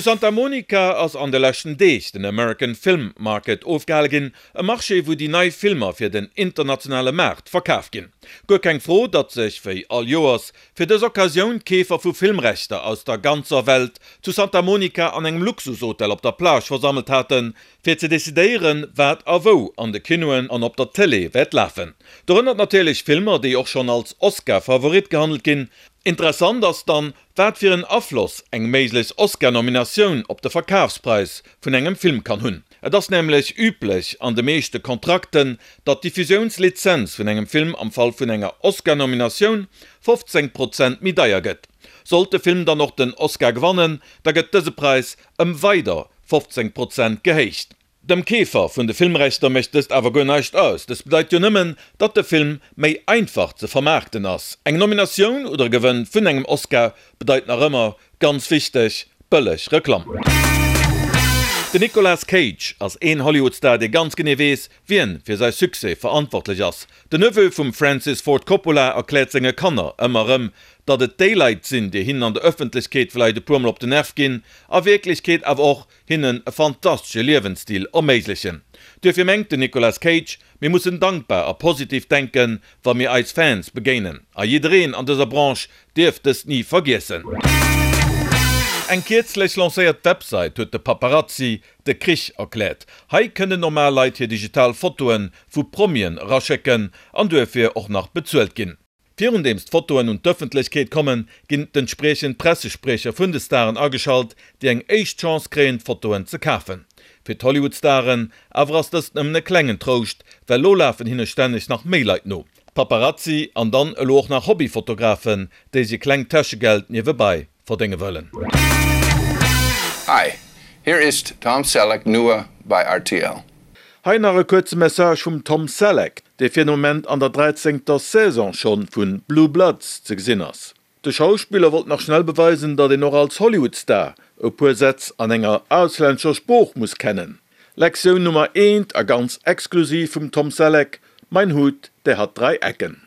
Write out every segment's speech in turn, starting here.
Zu Santa Monica ass an de leschten Deeg den American Film Market ofgehale ginn, e Marché wou déi nei Filmer fir den internationale Maart verkaf ginn. Guer keng Fro, datt sech, wéi all Joers, fir dës Occasioun d'Keefer vu Filmrechter aus der ganzer Welt zu Santa Monica an engem Luxushotel op der Plage versammelt haten, fir ze decidéieren, wat a wou an de Kinoen an op der Tëlee wäert lafen. Dorënner natierlech Filmer, déi och schonn als Oscar-Favorit gehandelt ginn. Interessant ass dann, Wat fir en Afloss eng méiglech Oscar-Nominatioun op de Verkafspräis vun engem Film kann hunn. Et ass nämlech üblech an de meeschte Kontrakten, datt d'Diffusiounslizenz vun engem Film am Fall vun enger Oscar-Nominatioun 15 Prozent méi deier gëtt. Sollt de Film dann och den Oscar gewannen, da gëtt dëse Präis ëm weider 15 Prozent gehéicht. Dem Keefer vun de Filmrechter mécht dëst awer guer näischt aus. Dëst bedeit jo nëmmen, datt de Film méi einfach ze vermaarkten ass. Eng Nominatioun oder e Gewënn vun engem Oscar bedeit nach ëmmer, ganz wichteg, bëlleg Reklamm. Den Nicolas Cage ass een Hollywood-Star, dee ganz genee weess, wien fir säi Succès verantwortlech ass. Den Neveu vum Francis Ford Coppola erkläert senge Kanner ëmmer erëm, datt et déi Leit sinn, déi hinnen an der Ëffentlechkeet vläicht e puer Mol op den Nerv ginn, a Wierklechkeet awer och hinnen e fantastesche Liewensstil erméiglechen. Duerfir mengt den Nicolas Cage, Mir mussen dankbar a positiv denken, wa mir eis Fans begéinen. A jiddereen an dëser Branche dierf dëst ni vergiessen. Eng kierzlech lancéiert Websait huet de Paparazzi de Krich erkläert. Hei kënnen normal Leit hir digital Fotoe vu Promien eraschécken an duerfir och nach bezuelt ginn. Virundeems d'Fotoen un d'Ëffentlechkeet kommen, ginn d'entspriechend Pressespriecher vun de Staren ageschalt, déi eng éischt Chance kréien, d'Fotoen ze kafen. Fir d'Hollywood-Staren awer ass dëst nëmmen e klengen Trouscht, well lo lafen hinne stänneg nach méi Leit no. Paparazzi an dann elo och nach Hobbyfotografen, déi sech e klengt Täschegeld niewebai verdénge wëllen. Hi, hier ist Tom Selleck nur bei rtl. Hei nach e kuerze Message vum Tom Selleck, dee fir den Moment an der dräizéngter Saison schonn vu Blue Bloods ze gesinn ass. De Schauspiller wollt nach schnell beweisen, datt een och als Hollywood-Star e puer Sätz an enger auslännescher Sprooch muss kennen. Lektioun Nummer eent a ganz exklusiv vum Tom Selleck, Mein Hut, der hat drei Ecken.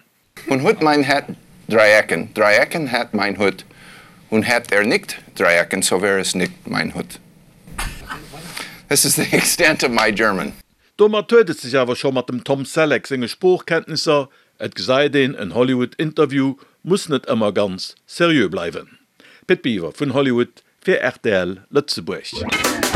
Und hut mein Hat drei Ecken, drei Ecken hat mein Hut, und hat er nicht drei Ecken, so wär es nicht mein Hut. This is the extent of my German. Domat huet et sech awer scho mat dem Tom Selleck senge Sproochkenntnisser, et gesäit een, en Hollywood-Interview muss net ëmmer ganz seriö bleiwen. Pit Biwer vun Hollywood fir rtl Lëtzebuerg.